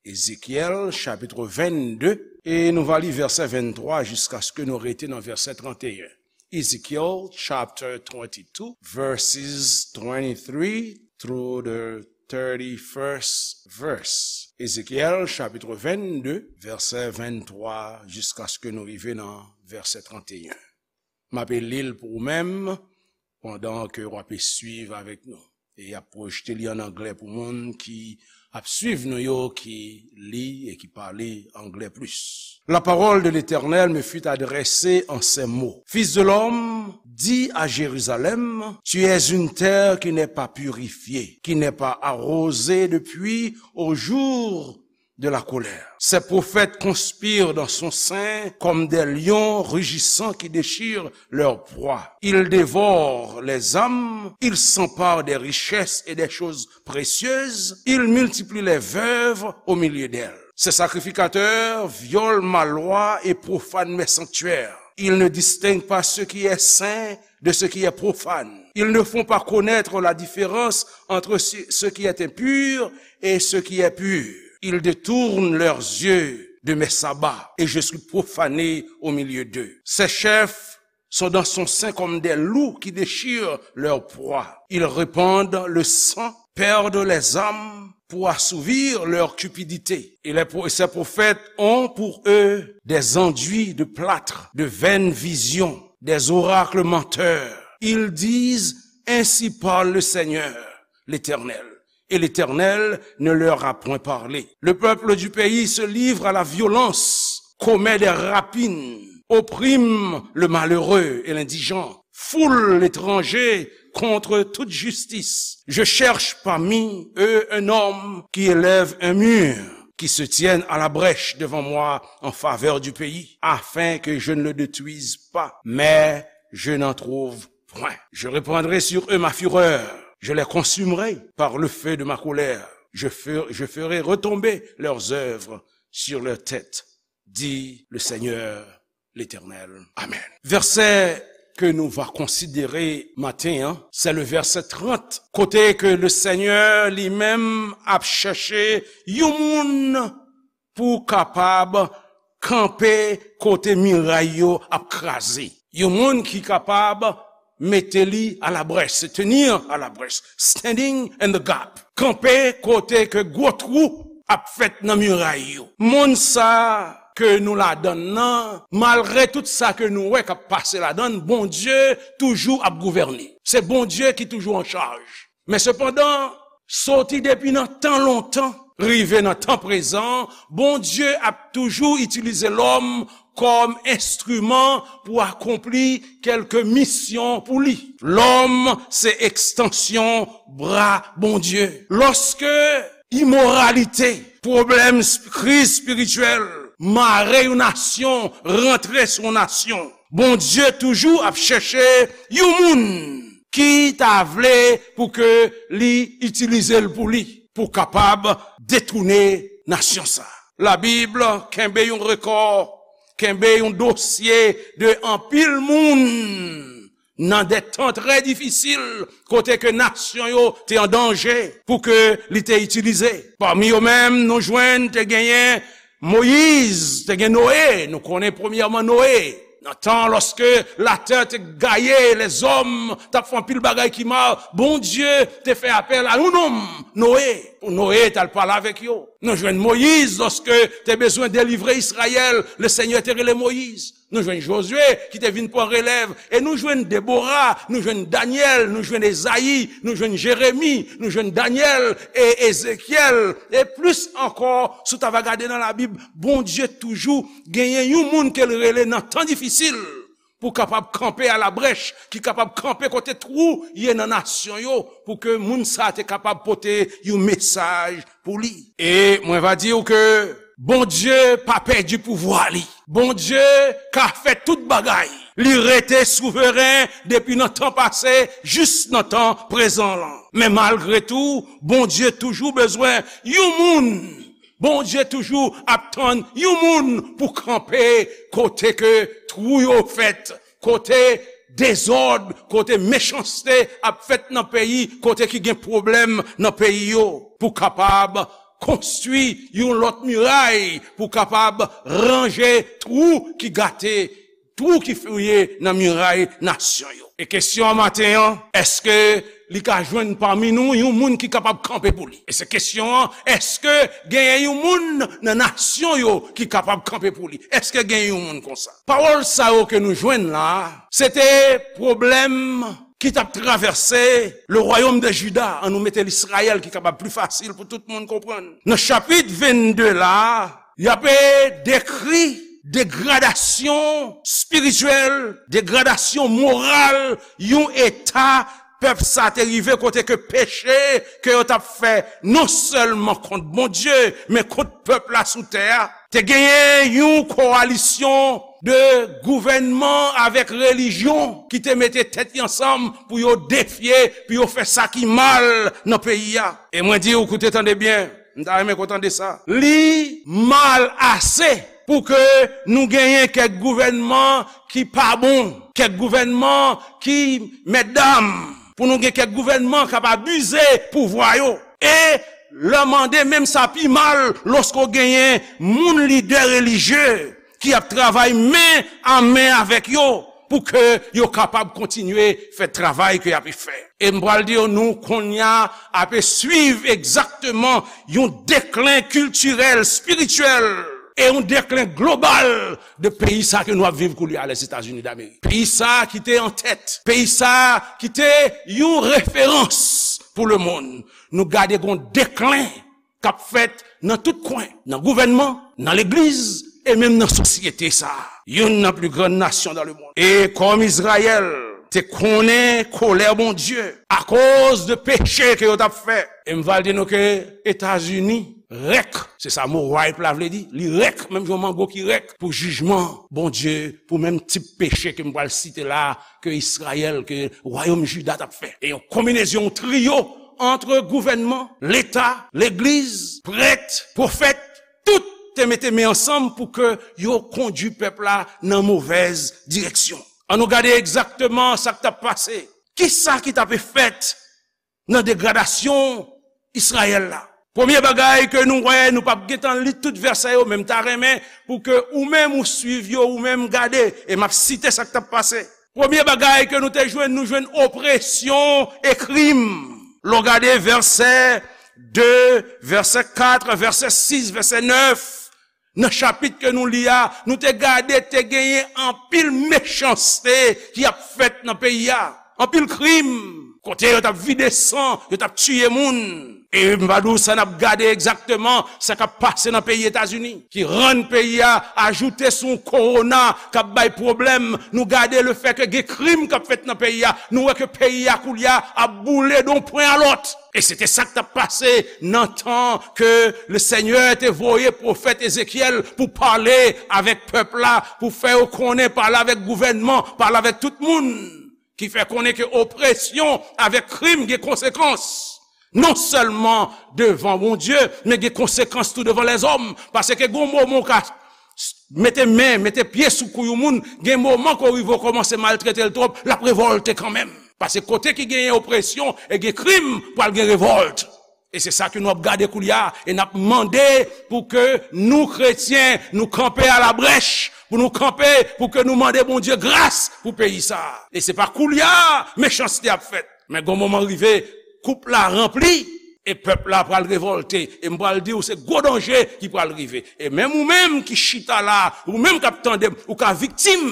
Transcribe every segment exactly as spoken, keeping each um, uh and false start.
Ezekyèl, chapit vennde, e nou va li vèsè venntwa jiskaske nou rete nan vèsè tranteyen. Ezekiel chapter twenty-two, verses twenty-three through the thirty-first verse. Ezekyèl, chapit vennde, vèsè venntwa, jiskaske nou rive nan vèsè tranteyen. M ape li l pou ou menm, pandan ke w ape swiv avèk nou. E y ap pwojte li an anglè pou moun ki ap swiv nou yo, ki li e ki pale anglè plis. La parole de l'Éternel me fut adressée en ces mots. Fils de l'homme, dis à Jérusalem, tu es une terre qui n'est pas purifiée, qui n'est pas arrosée depuis au jour de la colère. Ses prophètes conspirent dans son sein comme des lions rugissants qui déchirent leur proie. Ils dévorent les âmes, ils s'emparent des richesses et des choses précieuses, ils multiplient les veuves au milieu d'elles. Ces sacrificateurs violent ma loi et profanent mes sanctuaires. Ils ne distinguent pas ce qui est saint de ce qui est profane. Ils ne font pas connaître la différence entre ce ce qui est impur et ce qui est pur. Ils détournent leurs yeux de mes sabbats, et je suis profané au milieu d'eux. Ses chefs sont dans son sein comme des loups qui déchirent leur proie. Ils répandent le sang, perdent les âmes pour assouvir leur cupidité. Et les pro-, et ces prophètes ont pour eux des enduits de plâtre, de vaines visions, des oracles menteurs. Ils disent, ainsi parle le Seigneur, l'Éternel. Et l'Éternel ne leur a point parlé. Le peuple du pays se livre à la violence, commet des rapines, opprime le malheureux et l'indigent, foule l'étranger contre toute justice. Je cherche parmi eux un homme qui élève un mur, qui se tienne à la brèche devant moi en faveur du pays, afin que je ne le détruise pas. Mais je n'en trouve point. Je reprendrai sur eux ma fureur, je les consumerai par le feu de ma colère. Je fer-, je ferai retomber leurs œuvres sur leur tête, dit le Seigneur l'Éternel. Amen. Vèsè ke nou va konsidere maten an, se le vèsè trant, kote ke le Senyè li menm ap chèche yon moun pou kapab kanpe kote miray yo ap kraze. Yon moun ki kapab mete li alabrèch, se tenir alabrèch, standing in the gap. Kanpe kote ke gwo twou ap fèt nan miray yo. Moun sa ke nou ladann nan, malgre tout sa ke nou wè k ap pase ladann, Bondye toujou ap gouvène. Se Bondye ki toujou an chaj. Men sepandan, soti depi nan tan lontan, rive nan tan prezan, Bondye ap toujou itilize lòm kòm enstriman pou akonpli kèlke misyon pou li. Lòm se ekstansyon bra Bondye. Lòske imoralite, pwoblèm, sp-, kriz espirityèl mare yon nasyon, rantre sou yon nasyon, Bondye toujou ap chèche yon moun ki ta vle pou ke li itilize l pou li, pou kapab detounen nasyon sa. Labib kenbe yon rekò, kenbe yon dosye de anpil moun nan de tan trè difisil, kote ke nasyon yo te an danje pou ke li te itilize. Pami yo menm, nou jwenn te genyen Moyiz, te gen Noye, nou konnen premyèman Noye. Nan tan lòske latè te gaye, lèzòm t ap fè anpil bagay ki mal, Bondye te fè apèl a yon nonm, Noye, pou Noye t al pale avèk yo. Nou jwenn Moyiz, lòske te bezwen delivre Izrayèl, Lesenyè te rele Moyiz. Nou jwenn Jozye ki te vin pran relèv, e nou jwenn Debora, nou jwenn Danyèl, nou jwenn Ezayi, nou jwenn Jeremi, nou jwenn Danyèl e Ezekyèl, e plis ankò, si w ta va gade nan Labib, Bondye toujou genyen yon moun ke l rele nan tan difisil pou kapab kanpe alabrèch, ki kapab kanpe kote twou ye nan nasyon yo, pou ke moun sa a te kapab pote yon mesaj pou li. E mwen va di w ke Bondye pa pèdi pouvwa li. Bondye ka fè tout bagay. Li rete souveren depi nan tan pase jis nan tan prezan lan. Men malgre tou, Bondye toujou bezwen yon moun. Bondye toujou ap tann yon moun pou kanpe kote ke twou yo fèt, kote dezòd, kote mechanste ap fèt nan peyi, kote ki gen pwoblèm nan peyi yo, pou kapab konstwi yon lòt miray pou kapab ranje twou ki gate, twou ki fouye nan miray nasyon yo. E kesyon an maten an, èske li ka jwenn pami nou yon moun ki kapab kanpe pou li? E se kesyon an, èske genyen yon moun nan nasyon yo ki kapab kanpe pou li? Èske genyen yon moun konsa? Pawòl sa yo ke nou jwenn la, se te pwoblèm ki t ap travèse le royaume de Juda, an nou mete l Izrayèl ki kapab pli fasil pou tout moun konprann. Nan chapit vennde la, y ap dekri degradasyon espirityèl, degradasyon moral, yon eta pèp sa te rive kote ke peche ke yo t ap fè non sèlman kont Bondye, men kont pèp la sou tè a. Te genyen yon kowalisyon de gouvènman avèk relijyon ki te mete tèt yo ansanm pou yo defye, pou yo fè sa ki mal nan peyi a. E mwen di w, koute, tande byen, m ta renmen ke w tande sa. Li mal ase pou ke nou genyen kèk gouvènman ki pa bon, kèk gouvènman ki, mètdam, pou nou gen kèk gouvènman k ap abize pouvwa yo. E lè mande, menm sa pi mal lòske w genyen moun lidè relijye ki ap travay men a men avèk yo pou ke yo kapab kontinye fè travay ke y ap fè. E m pral di w, nou kounye a ap swiv egzakteman yon deklen kiltirèl, espirityèl, e yon deklen global de peyi sa ke nou ap viv koulye a, Lèzetazini Damerik. Peyi sa ki te an tèt, peyi sa ki te yon referans pou lemonn. Nou gade gon deklen k ap fèt nan tout kwen, nan gouvènman, nan legliz, e menm nan sosyete sa a. Youn nan pli grann nasyon dans le monde. E kòm Izrayèl te konnen kolè Bondye akoz de peche ke yo t ap fè. E m va di nou ke Etazini rèk, se sa mo ripe la vle di, li rèk, menm jan mango ki rèk, pou jijman Bondye, pou menm tip peche ke m pral site la, ke Izrayèl, ke wayòm Jida t ap fè. E yon konbinezyon, yon triyo ant gouvènman, leta, legliz, prèt, pwofèt, tout te mete men ansanm pou ke yo kondui pèp la nan movèz direksyon. Ann nou gade egzakteman sa k t ap pase. Kisa ki t ape fèt nan degradasyon Izrayèl la? Premye bagay ke nou wè, nou p ap gentan li tout vèsè yo, men m ta renmen pou ke ou menm ou swiv yo, ou menm gade, e m ap site sa k t ap pase. Premye bagay ke nou te jwenn, nou jwenn opresyon e krim. Lè w gade vèsè de, vèsè kat, vèsè sis, vèsè nèf, nan chapit ke nou li a, nou te gade te genyen anpil mechanste ki ap fèt nan peyi a. Anpil krim, kote yo t ap vide san, yo t ap tiye moun. E m va di w sa n ap gade egzakteman sa k ap pase nan peyi Etazini, ki rann peyi a ajoute sou yon kowona k ap bay pwoblèm. Nou gade lefètke gen krim k ap fèt nan peyi a. Nou wè ke peyi a koulye a ap boule d on pwen a lòt. E se te sa k t ap pase nan tan ke Lesenyè te voye pwofèt Ezekyèl pou pale avèk pèp la, pou fè yo konnen, pale avèk gouvènman, pale avèk tout moun, ki fè konnen ke opresyon avèk krim gen konsekans. Non sèlman devan Bondye, men gen konsekans tou devan lèzòm. Paske gen moman w ka mete men, mete pye sou kou yon moun, gen moman ke w rive w kòmanse maltrete l twòp, l ap revòlte kanmenm. Paske kote ki genyen opresyon e gen krim, pral gen revòlt. E se sa ke nou ap gade koulye a, e n ap mande pou ke nou kretyen, nou kanpe alabrèch, pou nou kanpe, pou ke nou mande Bondye gras pou peyi sa a. E se pa koulye a mechanste ap fèt, men gon moman rive, koup la ranpli, e pèp la pral revòlte. E m pral di w, se gwo danje ki pral rive. E menm ou menm ki chita la, ou menm k ap tande m, ou ka viktim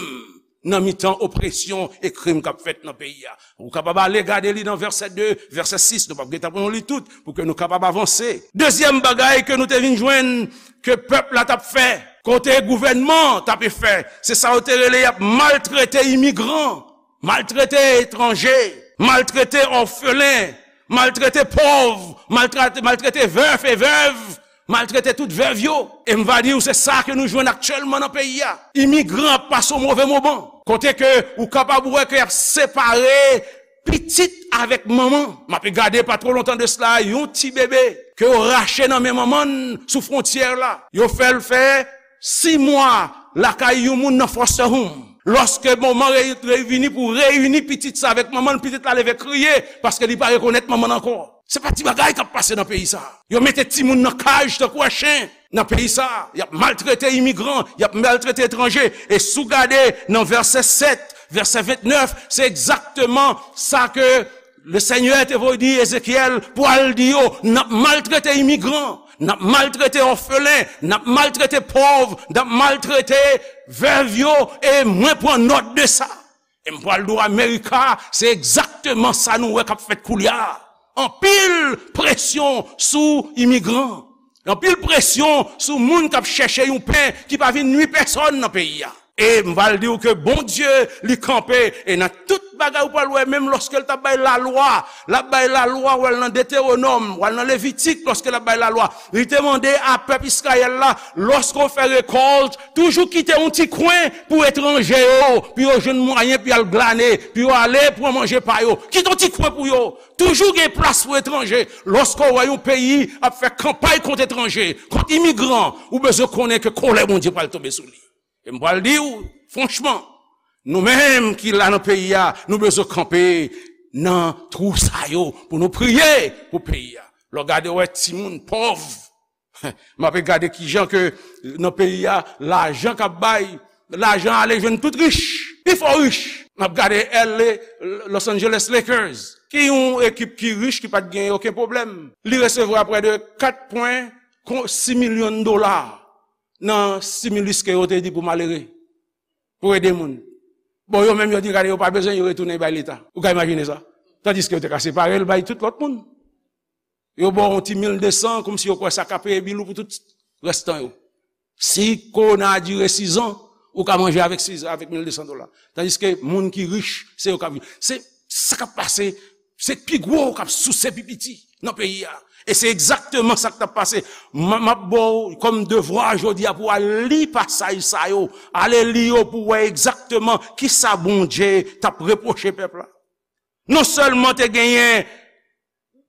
nan mitan opresyon e krim k ap fèt nan peyi a. Ou kapab ale gade li nan vèsè de, vèsè sis, nou p ap gentan pou nou li tout, pou ke nou kapab avanse. Dezyèm bagay ke nou te vin jwenn ke pèp la t ap fè, kote gouvènman t ape fè, se sa yo te rele y ap maltrete imigran, maltrete etranje, maltrete òfelen, maltrete pòv, maltrete, maltrete vèf e vèv, maltrete tout vèv yo. E m va di w, se sa ke nou jwenn aktyèlman nan peyi a. Imigran ap pase yon move moman. Kote ke ou kapab wè ke y ap separe pitit avèk manman. M ape gade pa twò lontan de sila, yon ti bebe ke yo rache nan men manman l sou fwontyè la. Yo fè l fè sis mwa lakay yon moun nan foster home. Lòske moman re-, revini pou reyini pitit sa avèk manman l, pitit la leve kriye paske li pa rekonèt manman l ankò. Se pa ti bagay k ap pase nan peyi sa. Yo mete timoun nan kaj tankou a chen nan peyi sa. Y ap maltrete imigran, y ap maltrete etranje. E si w gade nan vèsè sèt, vèsè vennèf, se egzakteman sa ke Lesenyè te voye di Ezekyèl pou al di yo, n ap maltrete imigran, n ap maltrete òfelen, n ap maltrete pòv, n ap maltrete vèv yo, e mwen pran nòt de sa. E m pral di w Amerika, se egzakteman sa nou wè k ap fèt koulye a. Anpil presyon sou imigran. Anpil presyon sou moun k ap chèche yon pen ki pa vin nwi pèsòn nan peyi a. E m pral di w ke Bondye, li kanpe, e nan tout bagay ou pral wè, menm lòske l t ap bay lalwa, l ap bay lalwa, w al nan Detewonòm, w al nan Levitik, lòske l ap bay lalwa, li te mande a pèp Izrayèl la, lòske w fè rekòlt, toujou kite yon ti kwen pou etranje yo, pou yo jwenn mwayen, pou y al glane, pou yo ale pran manje pa yo. Kite yon ti kwen pou yo. Toujou gen plas pou etranje. Lòske w wè yon peyi ap fè kanpay kont etranje, kont imigran, ou bezwen konnen ke kòlè Bondye pral tonbe sou li. E m pral di w, franchman, nou menm ki la nan peyi a, nou bezwen kanpe nan twou sa yo pou nou priye pou peyi a. Lè w gade, w wè timoun pòv, m ape gade kijan ke nan peyi a, lajan k ap bay, lajan ale jwenn tout rich, pi fò rich. M ap gade L A, Los Angeles Lakers, ki yon ekip ki rich, ki pa t gen okenn pwoblèm. Li resevwa prè de kat pwen sis milyon dola nan stimulus ke yo te di pou malere, pou ede moun. Bon, yo menm yo di, gade, yo pa bezwen, yo retounen bay Leta. Ou ka imajine sa? Tandiske yo te ka separe l bay tout lòt moun. Yo ba w yon ti mil de san, kòmsi yo kwè sa ka peye bil ou pou tout rès tan yo. Si kowona a dire sizan, ou ka manje avèk sizan, avèk mil de san dola. Tandiske moun ki rich, se yo k ap viv. Se sa k ap pase, se pi gwo k ap souse pi piti nan peyi a. E se egzakteman sa k t ap pase. M, m ap ba w kòm devwa jodi a pou w al li pasaj sa yo. Ale li yo pou w wè egzakteman kisa Bondye t ap repwoche pèp la. Non sèlman te genyen,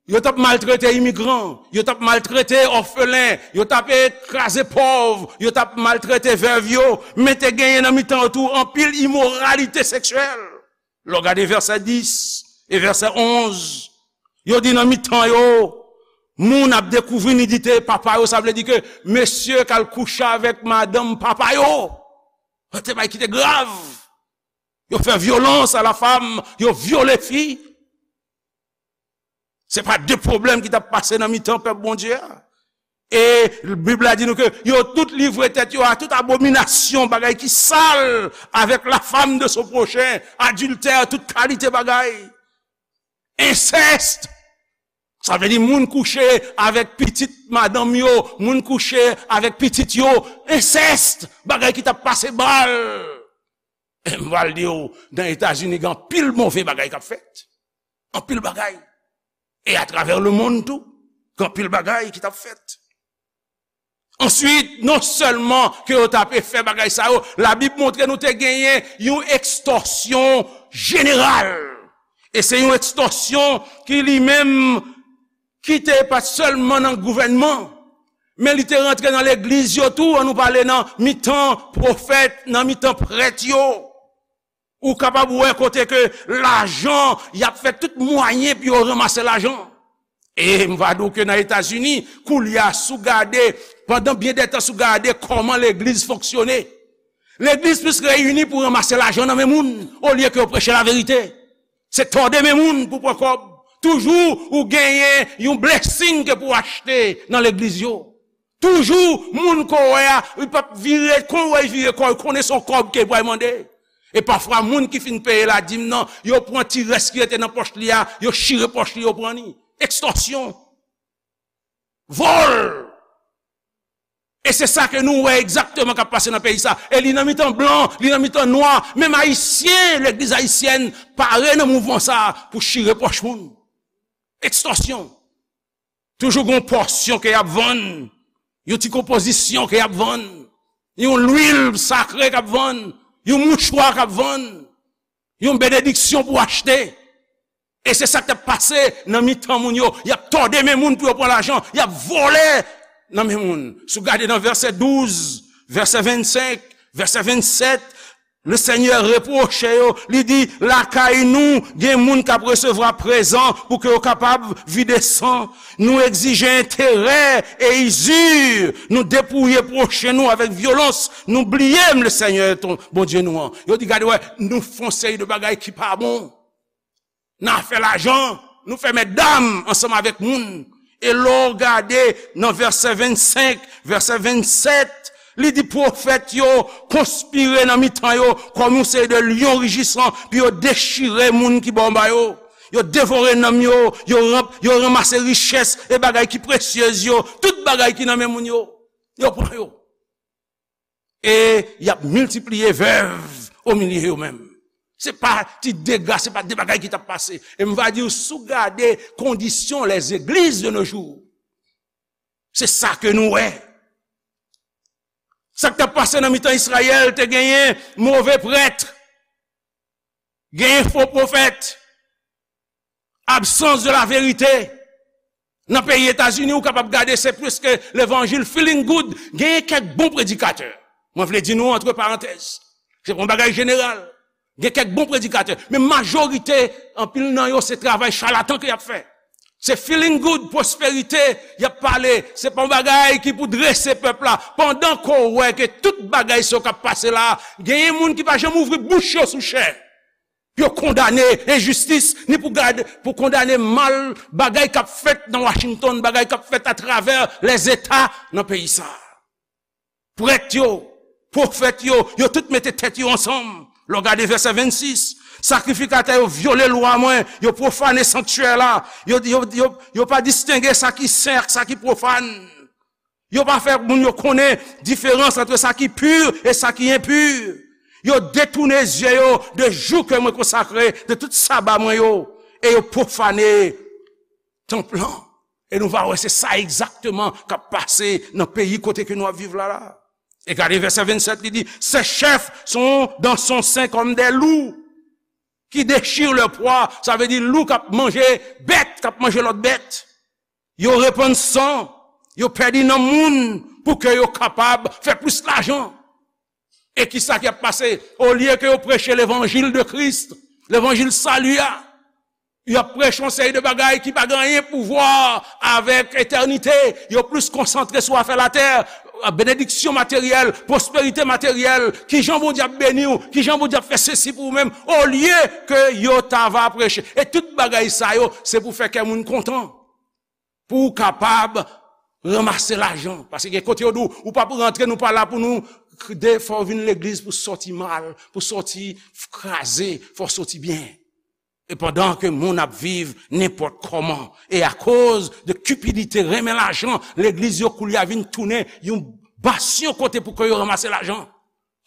yo t ap maltrete imigran, yo t ap maltrete òfelen, yo t ap kraze pòv, yo t ap maltrete vèv yo, men te genyen nan mitan yo tou anpil imoralite seksyèl. Lè w gade vèsè dis e vèsè onz, yo di nan mitan yo, moun ap dekouvri nidite papa yo, sa vle di ke mesye k al kouche avèk madanm papa yo. Te bay ki te grav. Yo fè vyolans a la fam, yo vyole fi. Se pa de pwoblèm ki t ap pase nan mitan pèp Bondye a. E Bib la di nou ke yo tout livre tèt yo a tout abominasyon, bagay ki sal, avec la femme de son prochain, adiltè, tout kalite bagay. Ensèst. Sa vle di moun kouche avèk pitit madanm yo, moun kouche avèk pitit yo, ensèst, bagay ki t ap pase mal. E m pral di w, nan Etazini, gen anpil move bagay k ap fèt. Anpil bagay. E atravè lemonn tou, gen anpil bagay ki t ap fèt. Answit, non sèlman ke yo t ape fè bagay sa yo, Labib montre nou te genyen yon ekstòsyon jeneral. E se yon ekstòsyon ki li menm ki te pa t sèlman nan gouvènman, men li te rantre nan legliz yo tou, an nou pale nan mitan pwofèt, nan mitan prèt yo. Ou kapab wè kote ke lajan, y ap fè tout mwayen pou yo ranmase lajan. E m va di w ke nan Etazini, koulye a, si w gade, pandan byen dè tan, si w gade kòman legliz fonksyone, legliz plis reyini pou ranmase lajan nan men moun, olye ke yo preche laverite. Se tòde men moun pou pran kòb. Toujou ou genyen yon blessing ke pou achte nan legliz yo. Toujou, moun ke w wè a, li p ap vire, kon w wè l vire kò, l konnen se yon kòb ke l pral mande. E pafwa, moun ki fin peye ladim nan, yo pran ti rès ki rete nan pòch li a, yo chire pòch li, yo pran li. Ekstòsyon. Vòl. E se sa ke nou wè egzakteman k ap pase nan peyi sa. E li nan mitan blan, li nan mitan nwa. Menm Ayisyen, legliz ayisyèn pare nan mouvman sa pou chire pòch moun. Ekstòsyon. Toujou gen yon pòsyon ke y ap vann, yon ti konpozisyon ke y ap vann, yon lwil sakre k ap vann, yon mouchwa k ap vann, yon benediksyon pou achte. E se sa k t ap pase nan mitan moun yo. Y ap tòde men moun pou yo pran lajan, y ap vòlè nan men moun. Si w gade nan vèsè douz, vèsè vennsenk, vèsè vennsèt, Le Senyè repwoche yo, li di, lakay nou, gen moun k ap resevwa prezan pou ke yo kapab vide san. Nou egzije enterè e izir. Nou depouye pwochen nou avèk vyolans. Nou bliye m, le Senyè, ton, Bondye nou an. Yo di, gade, wè, nou fè yon seri de bagay ki pa bon. Nan afè lajan, nou fè mètdam ansanm avèk moun. E lè w gade nan vèsè vennsenk, vèsè vennsèt, li di pwofèt yo konspire nan mitan yo kòm yon seri de lyon rijisan pou yo dechire moun ki bò anba yo. Yo devore nanm yo, yo, ranm, yo ranmase richès e bagay ki presyez yo, tout bagay ki nan men moun yo, yo pran yo. E y ap miltipliye vèv o milye yo menm. Se pa ti dega, se pa de bagay ki t ap pase. E m va di w, si w gade kondisyon les églises de nos jours, se sa ke nou wè. Sa k t ap pase nan mitan Izrayèl, te genyen move prèt, genyen fo pwofèt, absans de la verite. Nan peyi Etazini, ou kapab gade, se preske levanjil feeling good. Genyen kèk bon predikatè. Mwen vle di nou, antre parantèz, se pa yon bagay jeneral. Gen kèk bon predikatè, men majorite, anpil nan yo, se travay chalatan ke y ap fè. Se feeling good, pwosperite y ap pale. Se pa yon bagay ki pou drese pèp la. Pandan ke w wè ke tout bagay sa yo k ap pase la, genyen moun ki pa janm ouvri bouch yo sou chè pou yo kondane enjistis, ni pou gade, pou kondane mal, bagay k ap fèt nan Washington, bagay k ap fèt atravè lèzeta nan peyi sa a. Prèt yo, pwofèt yo, yo tout mete tèt yo ansanm. Lè w gade vèsè vennsis, sakrifikatè yo vyole lwa mwen, yo pwofane sanktyè la, yo, yo, yo, yo pa distenge sa ki sen ak sa ki pwofàn. Yo pa fè moun yo konnen diferans ant sa ki pi e sa ki enpi. Yo detounen zye yo de jou ke mwen konsakre, de tout saba mwen yo, e yo pwofane tanp lan. E nou va wè se sa egzakteman k ap pase nan peyi kote ke nou ap viv la la. E gade vèsè vennsèt, li di, ces chefs sont dans son sein comme des loups qui déchirent leur proie. Sa vle di lou k ap manje bèt, k ap manje lòt bèt. Yo repann san, yo pèdi nan moun pou ke yo kapab fè plis lajan. E kisa k ap pase? Olye ke yo preche levanjil de Kris, levanjil sali a, y ap preche yon seri de bagay ki pa gen anyen pou wè avèk etènite. Yo plis konsantre sou afè latè, benediksyon materyèl, pwosperite materyèl, kijan Bondye ap beni w, kijan Bondye ap fè sesi pou ou menm, olye ke yo ta va preche. E tout bagay sa yo, se pou fè kè moun kontan, pou w kapab ranmase lajan. Paske gen kote yo di w, ou p ap rantre, nou pa la pou nou de, fò w vin legliz pou sòti mal, pou sòti kraze, fò w sòti byen. E pandan ke moun ap viv nenpòt kòman, e akoz de kipidite, renmen lajan, legliz yo koulye a vin tounen yon basyon kote pou ke yo ranmase lajan.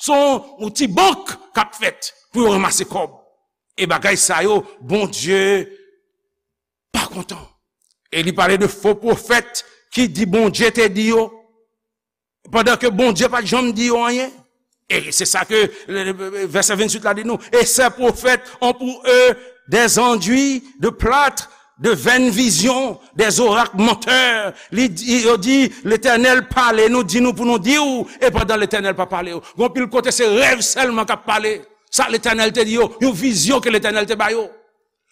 Se yon, yon ti bank k ap fèt pou yo ranmase kòb. E bagay sa yo, Bondye pa kontan. E li pale de fo pwofèt ki di Bondye te di yo, pandan ke Bondye pa t janm di yo anyen. E se sa ke, le, le, vèsè venntuit la di nou, et ces prophètes ont pour eux des enduits de plâtre, de vaines visions, des oracles menteurs. Li di, yo di, Letènèl pale nou, di nou pou nou di w, e pandan Letènèl pa pale yo. Gon pil kote se rèv sèlman k ap pale. Sa Letènèl te di yo, yon vizyon ke Letènèl te ba yo.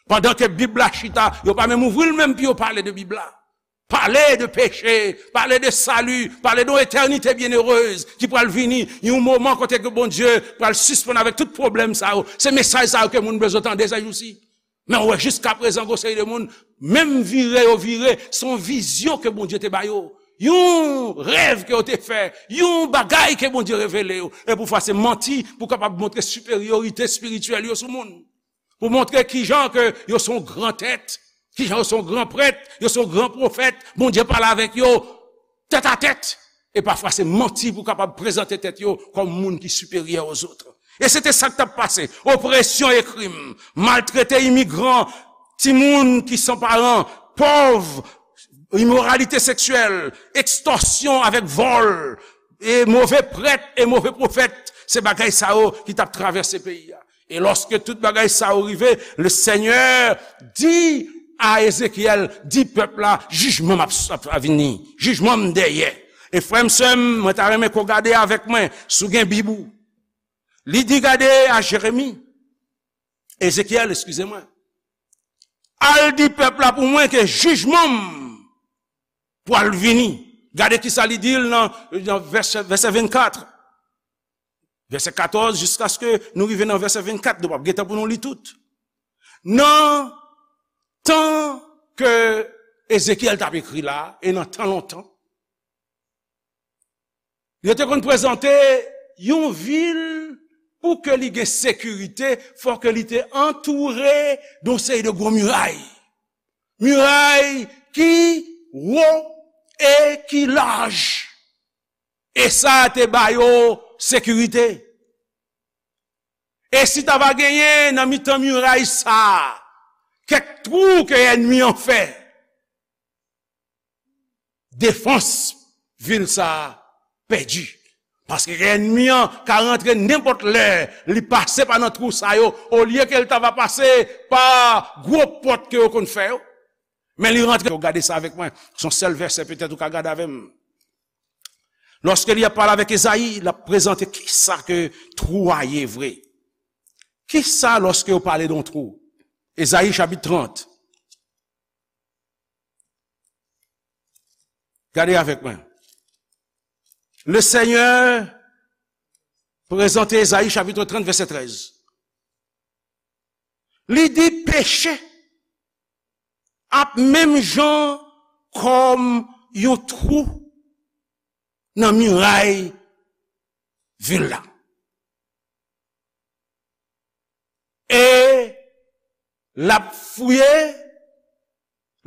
Pandan ke Bib la chita, yo pa menm ouvri l menm pou yo pale de Bib la. Pale de peche, pale de sali, pale de yon etènite byenerez ki pral vini, yon moman kote ke Bondye pral sispann avèk tout pwoblèm sa yo. Se mesaj sa yo ke moun bezwen tande se jousi. Men w wè jiska prezan gon seri de moun, menm vire yo vire, se yon vizyon ke Bondye te ba yo. Yon rèv ke yo te fè, yon bagay ke Bondye revele yo. E poufwa se manti pou kapab montre siperyorite espirityèl yo sou moun. Pou montre kijan ke yo se yon gran tèt, kijan yo se yon gran prèt, yo se yon gran pwofèt, Bondye pale avèk yo tèt a tèt. E pafwa se manti pou kapab prezante tèt yo kòm moun ki siperyè ozòt. E se te sa k t ap pase. Opresyon e krim, maltrete imigran, timoun ki san paran, pòv, imoralite seksyèl, ekstòsyon avèk vòl, e move prèt e move pwofèt, se bagay sa yo ki t ap travèse peyi a. E lòske tout bagay sa yo rive, le Senyè di a Ezekyèl, di pèp la, jijman m ap, ap, ap vini, jijman m dèyè. E frè m, sè m, mwen ta renmen ke w gade avèk mwen, si w gen Bib ou, Li di, gade a Jeremi, Ezekyèl, eskize mwen, al di pèp la pou mwen ke jijman m pral vini. Gade kisa li di l nan, nan vèsè, vèsè vennkat, vèsè katòz, jiskaske nou rive nan vèsè vennkat, nou p ap gen tan pou nou li tout. Nan tan ke Ezekyèl t ap ekri la, e nan tan lontan, yo te konn prezante yon vil pou ke li gen sekirite, fò ke li te antoure de yon seri de gwo miray. Miray ki wo e ki laj. E sa te ba yo sekirite. E si ta va genyen nan mitan miray sa a, kèk twou ke ènmi an fè, defans vil sa a pèdi. Paske ènmi an ka rantre nenpòt lè, li pase pa nan twou sa yo, olye ke l ta va pase pa gwo pòt ke yo konn fè yo. Men li rantre, yo gade sa avèk mwen, se yon sèl vèsè petèt ou ka gade avè m. Lòske li ap pale avèk Ezayi, l ap prezante kisa ke twou a ye vre. Kisa lòske yo pale de yon twou? Ezayi chapit trant. Gade avèk mwen. Le Senyè prezante Ezayi chapit trant, vèsè trèz. Li di peche ap menm jan kòm yon twou nan miray vil la. E l ap fouye,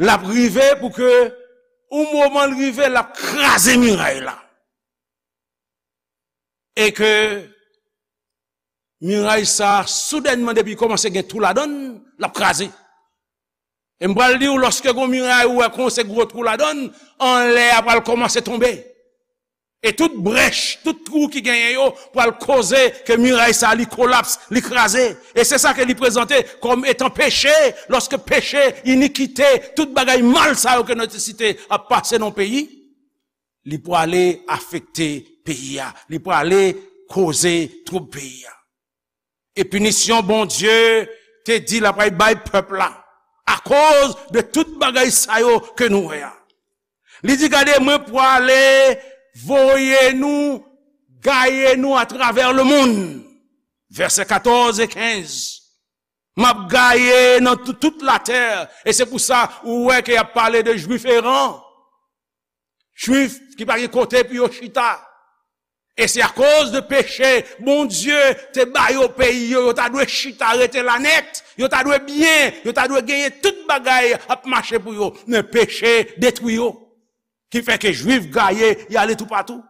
l ap rive pou ke yon moman l rive, l ap kraze miray la. E ke miray sa, soudènman, depi kòmanse gen twou ladan l, l ap kraze. E m pral di w, lòske gon miray ou wè kòmanse gwo twou ladan l, anlè a pral kòmanse tonbe. E tout brèch, tout twou ki genyen yo, pral koze ke miray sa li kolaps, li kraze. E se sa ke li prezante kòm etan peche, lòske peche, inikite, tout bagay mal sa yo ke nou te site ap pase nan peyi, li prale afekte peyi a, li prale koze twoub peyi a. E pinisyon Bondye te di l ap bay pèp la akoz de tout bagay sa yo ke nou wè a. Li di, gade, mwen prale voye nou, gaye nou atravè lemonn. Vèsè katòz e kenz. M ap gaye nan tout, tout latè. E se pou sa ou wè ke y ap pale de Jwif eran. Jwif ki pa gen kote pou yo chita. E se akoz de peche, Bondye te ba yo peyi yo, yo ta dwe chita rete la nèt, yo ta dwe byen, yo ta dwe genyen tout bagay ap mache pou yo. Men peche detwi yo. Ki fè ke Jwif gaye, y ale toupatou.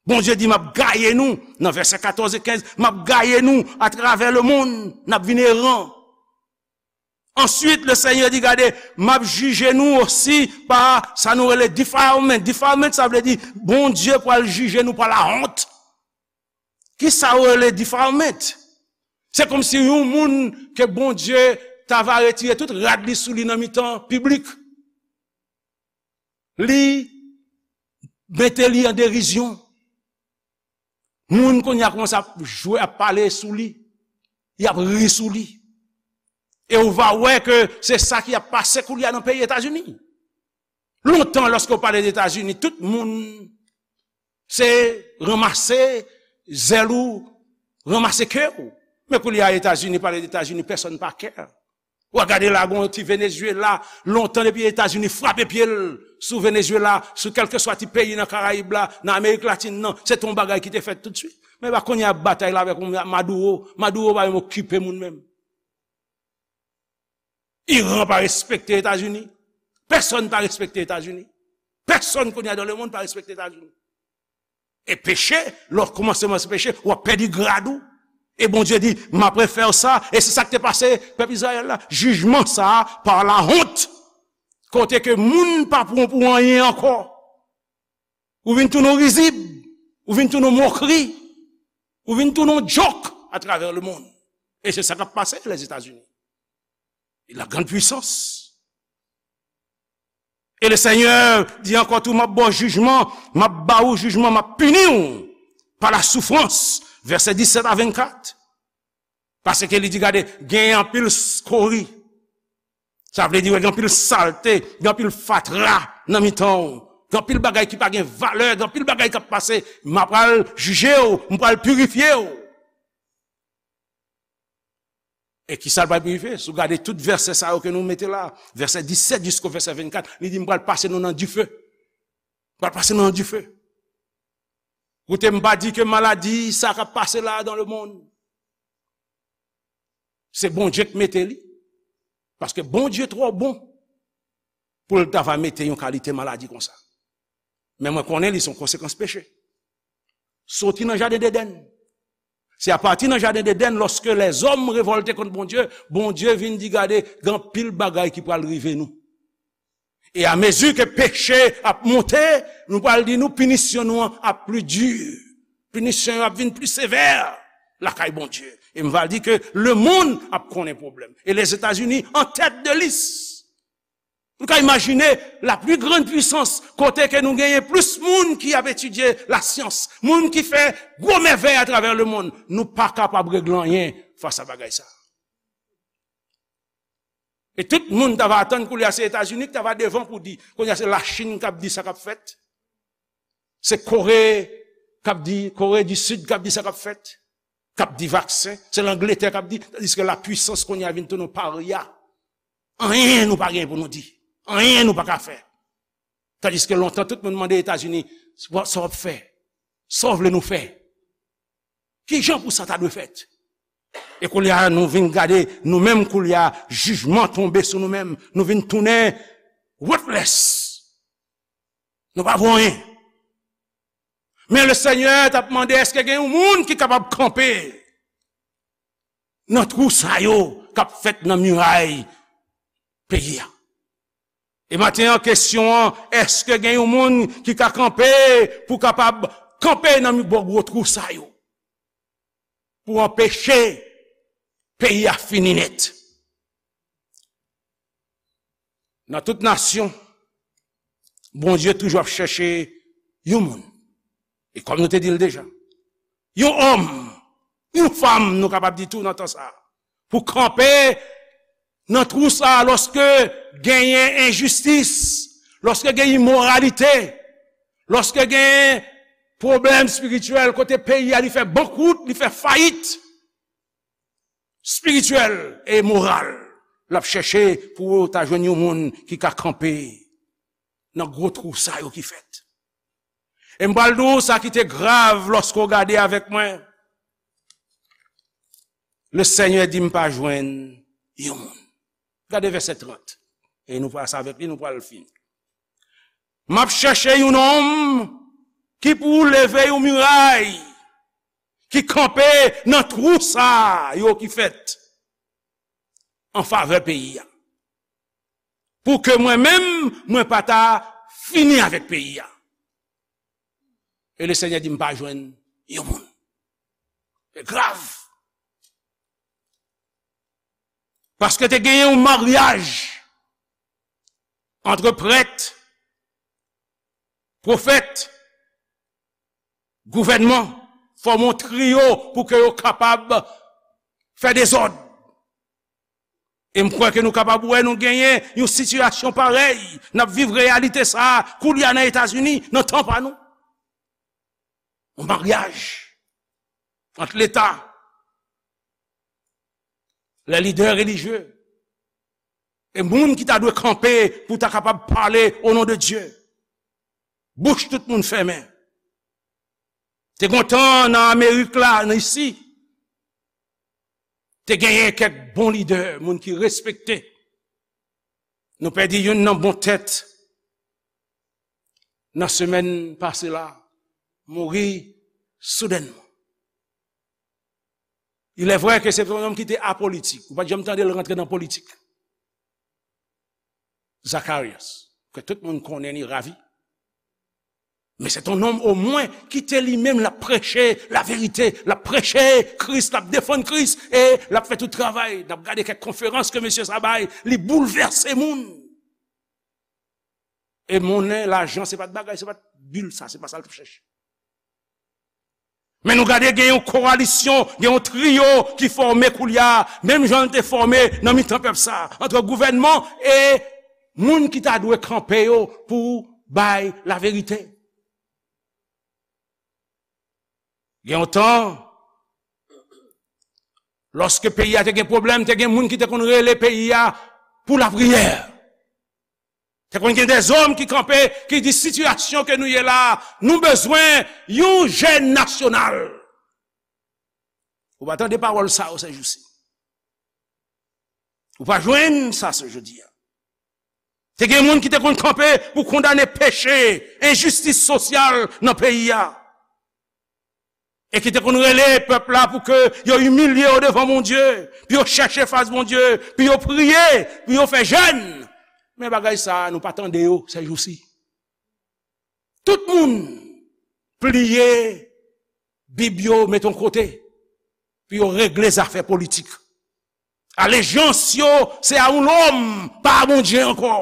Bondye di, m ap gaye nou, nan vèsè katòz e kenz, m ap gaye nou atravè lemonn, n ap vin eran. Answit, le Senyè di, gade, m ap jije nou osi pa sa nou rele defilement. Defilement, sa vle di, Bondye pral jije nou pa lawont. Ki sa yo rele defilement? Se kòmsi yon moun ke Bondye ta va retire tout rad li sou li nan mitan piblik. Li mete li an derizyon. Moun kounye a kòmanse ap jwe, ap pale sou li. Y ap ri sou li. E ou va wè ke se sa ki ap pase kounye a nan peyi Etazini. Lontan, lòske w pale de Etazini, tout moun se ranmase zèl ou, ranmase kè w. Men kounye a Etazini, pale de Etazini, pèsonn pa kè. W a gade la, gon ti Venezuela, lontan depi Etazini frape pye l sou Venezuela, sou kèlkeswa ti peyi nan Karayib la, nan Amerik Latin nan, se te yon bagay ki te fèt toutswit. Men pa kounye a batay la avèk yon Maduro, Maduro pa menm okipe moun menm. Iran pa respekte Etazini. Pèsonn pa respekte Etazini. Pèsonn kounye a dans le monde pa respekte Etazini. E peche, lè w kòmanse manse peche, w ap pèdi grad ou. E Bondye di, m ap refè w sa, e se sa k te pase pèp Izrayèl la. Jijman sa a, pa lawont. Kote ke moun pa pran w pou anyen ankò. Ou vin tounen yon rizib, ou vin tounen yon mokri, ou vin tounen yon djòk atravè lemonn. E se sa k ap pase Lèzetazini. La grande puissance. E le Senyè di ankò tou, m ap ba w jijman, m ap ba ou jijman, m ap pini w pa la soufrans, Vèsè disèt a vennkat. Paske li di, gade, gen anpil skori. Sa vle di, gen anpil salte, gen anpil fatra nan mitan w. Gen anpil bagay ki pa gen valè, gen anpil bagay k ap pase. M a pral jije w, m pral pirifye w. E ki sa l pral pirifye? Si w gade tout vèsè sa yo ke nou mete la, vèsè disèt jisko vèsè vennkat, li di, m pral pase nou nan dife. M pral pase nou nan dife. Koute, m pa di ke maladi sa k ap pase la dans le monde, se Bondye k mete li. Paske Bondye twò bon pou l ta va mete yon kalite maladi konsa. Men mwen konnen li se yon konsekans peche. Soti nan jaden Edenn. Se apati nan jaden Edenn, lòske lèzòm revòlte kont Bondye, Bondye vin di, gade, gen anpil bagay ki pral rive nou. E amezi ke peche ap monte, nou pral di nou pinisyon nou an ap pli di. Pinisyon yo ap vin pli sevè lakay Bondye. E m va di ke lemonn ap konnen pwoblèm. E Lèzetazini an tèt de lis. Nou ka imajine la pli grann pwisans kote ke nou genyen plis moun ki ap etidye lasyans, moun ki fè gwo mèvèy atravè lemonn. Nou pa kapab regle anyen fas a bagay sa. E tout moun ta va atann koulye a se Etazini ki ta va devan pou di. Kounye a se Lachin k ap di sa k ap fèt. Se Kore k ap di, Kore di Sid k ap di sa k ap fèt. K ap di vaksen. Se Langletè k ap di. Tandiske lapwisans kounye a vin tounen yon parya. Anyen nou pa gen pou nou di. Anyen nou pa ka fè. Tandiske lontan tout moun mande Etazini, sa w ap fè? Sa w vle nou fè? Ki jan pou sa ta dwe fèt? E koulye a, nou vin gade, nou menm koulye a, jijman tonbe sou nou menm. Nou vin tounen worthless. Nou pa vo anyen. Men Lesenyè t ap mande, èske gen yon moun ki kapab kanpe nan twou sa yo k ap fèt nan miray peyi a? E maten an, kesyon an, èske gen yon moun ki ka kanpe pou kapab kanpe nan bò gwo twou sa yo? Pou anpeche peyi a fini nèt. Nan tout nasyon, Bondye toujou ap chèche yon moun. E kòm nou te di l deja, yon òm, yon fanm, nou kapab di tou nan tan sa a, pou kanpe nan twou sa a lòske genyen enjistis, lòske gen imoralite, lòske gen pwoblèm espirityèl, kote peyi a li fè bankwout, li fè fayit espirityèl e moral. L ap chèche pou ta jwenn yon moun ki ka kanpe nan gwo twou sa yo ki fèt. E m pral di w sa ki te grav lòske w gade avèk mwen. Lesenyè di m pa jwenn yon moun. Gade vèsè trant. E nou pral sa avèk li, nou pral fini. M ap chèche yon nonm ki pou leve yon miray, ki kanpe nan twou sa yo ki fèt an favè peyi a. Pou ke mwen menm, mwen pa ta fini avèk peyi a. E Lesenyè di m pa jwenn yon moun. Se grav. Paske te genyen yon maryaj ant prèt, pwofèt, gouvènman, fòme yon triyo pou ke yo kapab fè dezòd. E m kwè ke nou kapab wè nou genyen yon sitiyasyon parèy. N ap viv reyalite sa a koulye a nan Etazini, nan tan pa nou. Yon maryaj ant Leta, lè lidè relijye, e moun ki ta dwe kanpe pou ta kapab pale o non de Dye. Bouch tout moun fèmen. Te gon tan nan Amerik la, nan isi, te genyen kèk bon lidè, moun ki respekte. Nou pèdi youn nan bon tèt nan semèn pase la, mouri soudènman. Il est vrai que c'est un homme qui était apolitique. Ou pa t janm tande l rantre nan politik. Zacharias, ke tout moun konnen li ravi. Men se yon nonm omwen ki te li menm l ap preche laverite, l ap preche Kris, l ap defann Kris, e l ap fè tout travay. N ap gade kèk konferans ke mesye sa bay, li boulvèse moun. E monnen, lajan, se pa t bagay, se pa t bil sa, se pa sa l t ap chèche. Men nou gade, gen yon kowalisyon, gen yon triyo ki fòme koulye a, menm jan l te fòme nan mitan pèp sa, ant gouvènman e moun ki ta dwe kanpe yo pou bay laverite. Gen yon tan, lòske peyi a te gen pwoblèm, te gen moun ki te konn rele peyi a pou lapriyè. Te konn gen dèzòm ki kanpe, ki di, sitiyasyon ke nou ye la, nou bezwen yon jèn nasyonal. Ou pa tande pawòl sa yo sèjousi. Ou pa jwenn sa se jodi a. Te gen moun ki te konn kanpe pou kondane peche, enjistis sosyal nan peyi a. E ki te konn rele pèp la pou ke yo imilye yo devan Bondye, pou yo chèche fas Bondye, pou yo priye, pou yo fè jèn. Men bagay sa a, nou pa tande yo sèjousi. Tout moun pliye Bib yo, mete yon kote, pou yo regle zafè politik. Alejans yo, se a yon lòm, pa a Bondye ankò.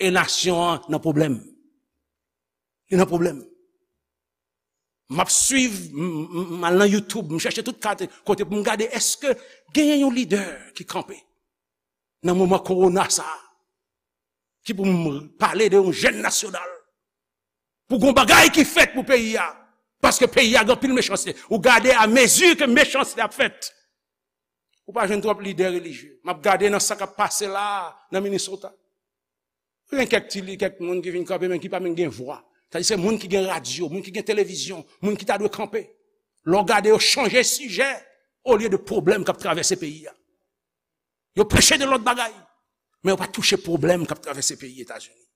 E nasyon an nan pwoblèm. Li nan pwoblèm. M ap swiv, m, m, m al nan YouTube, m chèche tout kat-, kote pou m gade, èske genyen yon lidè ki kanpe nan moman kowona sa a, ki pou m pale de yon jèn nasyonal, pou gon bagay ki fèt pou peyi a, paske peyi a gen anpil mechanste. Ou gade, a mezi ke mechanste ap fèt, ou pa jwenn twòp lidè relijye. M ap gade nan sa k ap pase la a, nan Minnesota. Gen kèk ti li, kèk moun ki vin kanpe, men ki pa menm gen vwa. Sa di se moun ki gen radyo, moun ki gen televizyon, moun ki ta dwe kanpe. Lè w gade, yo chanje sijè olye de pwoblèm k ap travèse peyi a. Yo preche de lòt bagay, men yo pa touche pwoblèm k ap travèse peyi Etazini.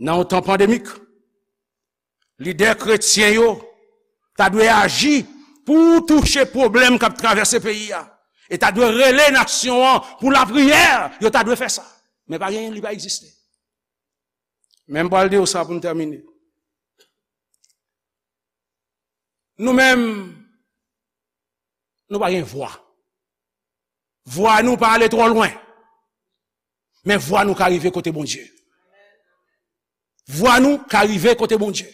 Nan yon tan pandemik, lidè kretyen yo ta dwe aji pou touche pwoblèm k ap travèse peyi a. E ta dwe rele nasyon an pou lapriyè, yo ta dwe fè sa. Men pa genyen, li pa egziste. Men m pral di w sa pou m tèmine. Nou menm, nou pa gen vwa. Vwa nou pa ale twò lwen. Men vwa nou ka rive kote Bondye. Vwa nou ka rive kote Bondye.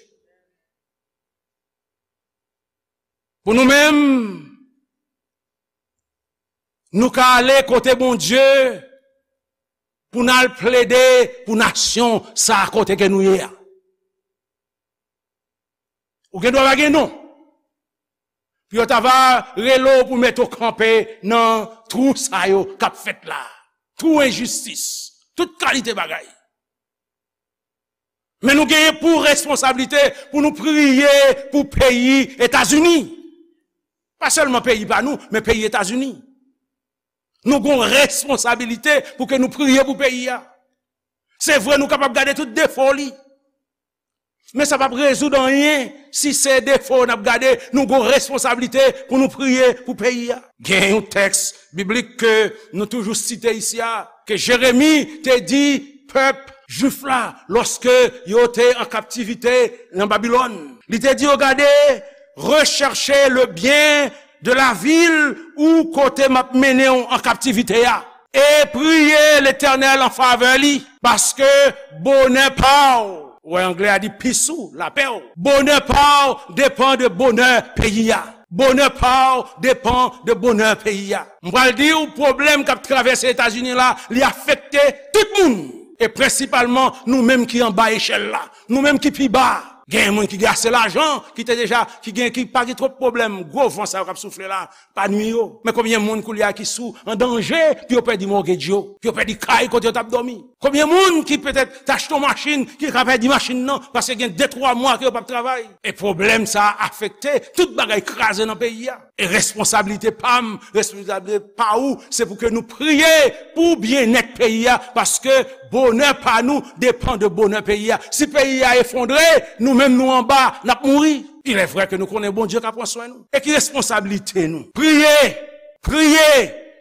Pou nou menm, nou ka ale kote Bondye pou n al plede pou nasyon sa a kote ke nou ye a. Ou gen dwa pa gen non. Pou yo ta va rele w pou mete w kanpe nan twou sa yo k ap fèt la. Twou enjistis. Tout kalite bagay. Men nou genyen pou responsablite pou nou priye pou peyi Etazini. Pa sèlman peyi pa nou, men peyi Etazini. Nou gon responsabilite pou ke nou priye pou peyi a. Se vre, nou kapab gade tout defo li. Men sa p ap rezoud anyen si se defo n ap gade, nou gon responsablite pou nou priye pou peyi a. Gen yon tèks biblik ke nou toujou site isi a, ke Jeremi te di pèp jwif la lòske yo te an kaptivite nan Babilòn. Li te di yo, gade, recherchez le bien de la ville ou kote m ap mennen w an kaptivite a. E priye Letènèl an favè li, paske bonè pa w, ou wè anglè a di peace ou, lapè w, bonè pa w depann de bonè peyi a. Bonè pa w depann de bonè peyi a. M pral di w, pwoblèm k ap travèse Etazini la, li afekte tout moun. E prensipalman, nou menm ki anba echèl la. Nou menm ki pi ba. Gen moun ki gen ase lajan, ki te deja, ki gen, ki pa gen twòp pwoblèm. Gwo van sa yo k ap soufle la, pa nwi yo. Men konbyen moun koulye a ki sou an danje pou yo pèdi mortgage yo, pou yo pèdi kay kote yo t ap dòmi? Konbyen moun ki petèt t achte yon machin, ki ka pèdi machin nan, paske gen de twa mwa ke yo p ap travay? E pwoblèm sa a afekte tout bagay, kraze nan peyi a. E responsablite pa m, responsablite pa ou, se pou ke nou priye pou byennèt peyi a, paske bonè pa nou depann de bonè peyi a. Si peyi a efondre, nou menm nou anba, n ap mouri. Il est vrai ke nou konnen Bondye ka pran swen nou. E ki responsablite nou? Priye, priye,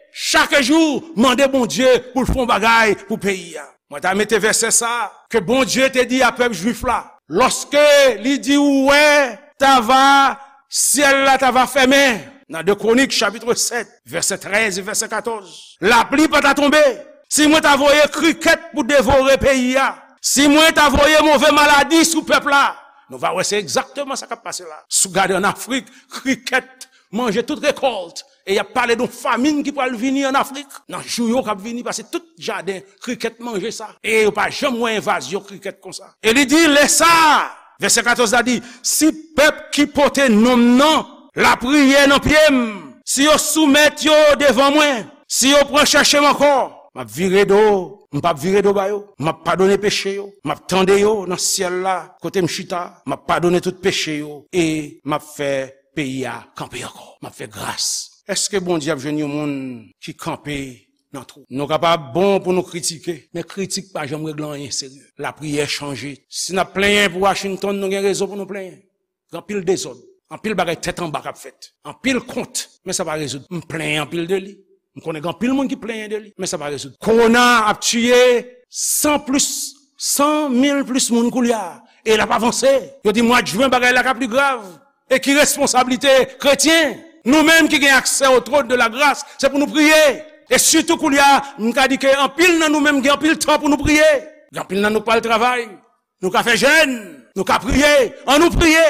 chak jou, mande Bondye pou l fè yon bagay pou peyi a. Mwen ta mete vèsè sa a, ke Bondye te di a pèp jwif la, lòske li di, ou wè, ta va, syèl la ta va fèmen. Nan de Kwonik, chapit sèt, vèsè trèz e vèsè katòz. Lapli pa ta tonbe. Si mwen ta voye krikèt pou devore peyi a, si mwen ta voye move maladi sou pèp la, Nou va wè se egzakteman sa k ap pase la. Si w gade ann Afrik, krikèt manje tout rekòlt. E y ap pale de yon famin ki pral vini ann Afrik. Nan jou yo k ap vini, paske tout jaden krikèt manje sa. E yo pa janm wè envazyon krikèt konsa. E li di, lè sa, vèsè katòz la di, si pèp ki pote non m nan lapriyè nan pye m, si yo soumèt yo devan mwen, si yo pran chèche m ankò, m ap vire do, m p ap vire do ba yo. M ap padone peche yo, m ap tande yo nan syèl la, kote m chita, m ap padone tout peche yo, e m ap fè peyi a kanpe ankò. M ap fè gras. Èske Bondye ap jwenn yon moun ki kanpe nan twou? Nou kapab bon pou nou kritike, men kritik pa janm regle anyen serye. Lapriyè chanje. Si n ap plenyen pou Washington, nou gen rezon pou nou plenyen. Gen anpil dezòd, anpil bagay tèt anba k ap fèt, anpil kont, men sa pa rezoud. M plenyen anpil de li. M konnen gen anpil moun ki plenyen de li, men sa pa rezoud. Kowona ap tiye san plis, san mil plis moun koulye a, e l ap avanse. Yo di mwa jen bagay la ka pli grav. E ki responsablite kretyen? Nou menm ki gen aksè o twòn de la gras, se pou nou priye. E sitou koulye a, m ka di ke anpil nan nou menm gen anpil tan pou nou priye. Gen anpil nan nou k pral travay. Nou ka fè jèn, nou ka priye, ann nou priye.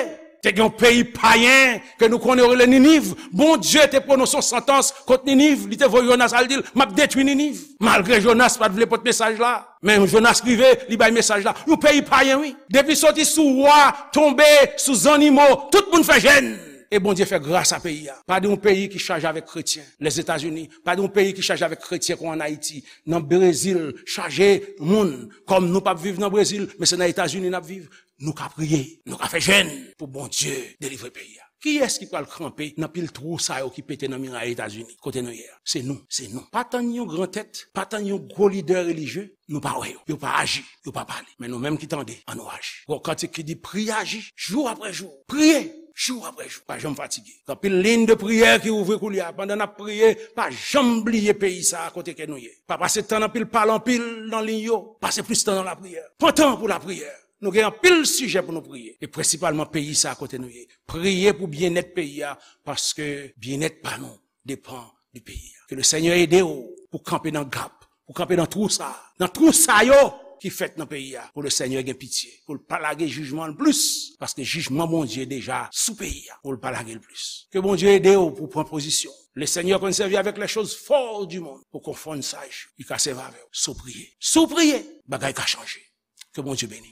Te gen yon peyi payen ke nou konnen yo rele Niniv. Bondye te pwononse yon santans kont Niniv. Li te voye Jonas al di l, m ap detwi Niniv. Malgre Jonas pa t vle pote mesaj la, men Jonas rive, li bay mesaj la. Yon peyi payen, wi. Depi soti sou wa, tonbe sou zannimo, tout moun fè jèn. E Bondye fè gras a peyi a. Pa de yon peyi ki chaje avèk kretyen, Lèzetazini. Pa de yon peyi ki chaje avèk kretyen kon ann Ayiti. Nan Brezil, chaje moun. Kòm nou p ap viv nan Brezil, men se nan Etazini n ap viv. Nou ka priye, nou ka fè jèn pou Bondye delivre peyi a. Kiyès ki pral kanpe nan pil twou sa yo ki pete nan miray Etazini, kote nou ye a? Se nou, se nou. Pa tann yon gran tèt, pa tann yon gwo lidè relijye, nou pa wè yo. Yo pa aji, yo pa pale. Men nou menm ki tande, ann nou aji. Gon kantik ki di, priye, aji, jou apre jou. Priye, jou apre jou. Pa janm fatige. Gen anpil liy de priyè ki ouvri koulye a. Pandan n ap priye, pa janm bliye peyi sa a kote ke nou ye. Pa pase tan anpil, pale anpil nan liy yo. Pase plis tan nan lapriyè. Pran tan pou lapriyè. Nou gen anpil sijè pou nou priye. E prensipalman peyi sa a kote nou ye. Priye pou byennèt peyi a, paske byennèt pa nou depann de peyi a. Ke le Senyè ede w pou kanpe nan gap, pou kanpe nan twou sa a, nan twou sa yo ki fèt nan peyi a, pou le Senyè gen pitye, pou l pa lage jijman l plis, paske jijman Bondye deja sou peyi a, pou l pa lage l plis. Ke Bondye ede w pou pran pozisyon. Le Senyè konn sèvi avèk les choses folles du monde pou konfonn saj. Li ka sèvi avè w si w priye. Si w priye, bagay ka chanje. Ke Bondye beni.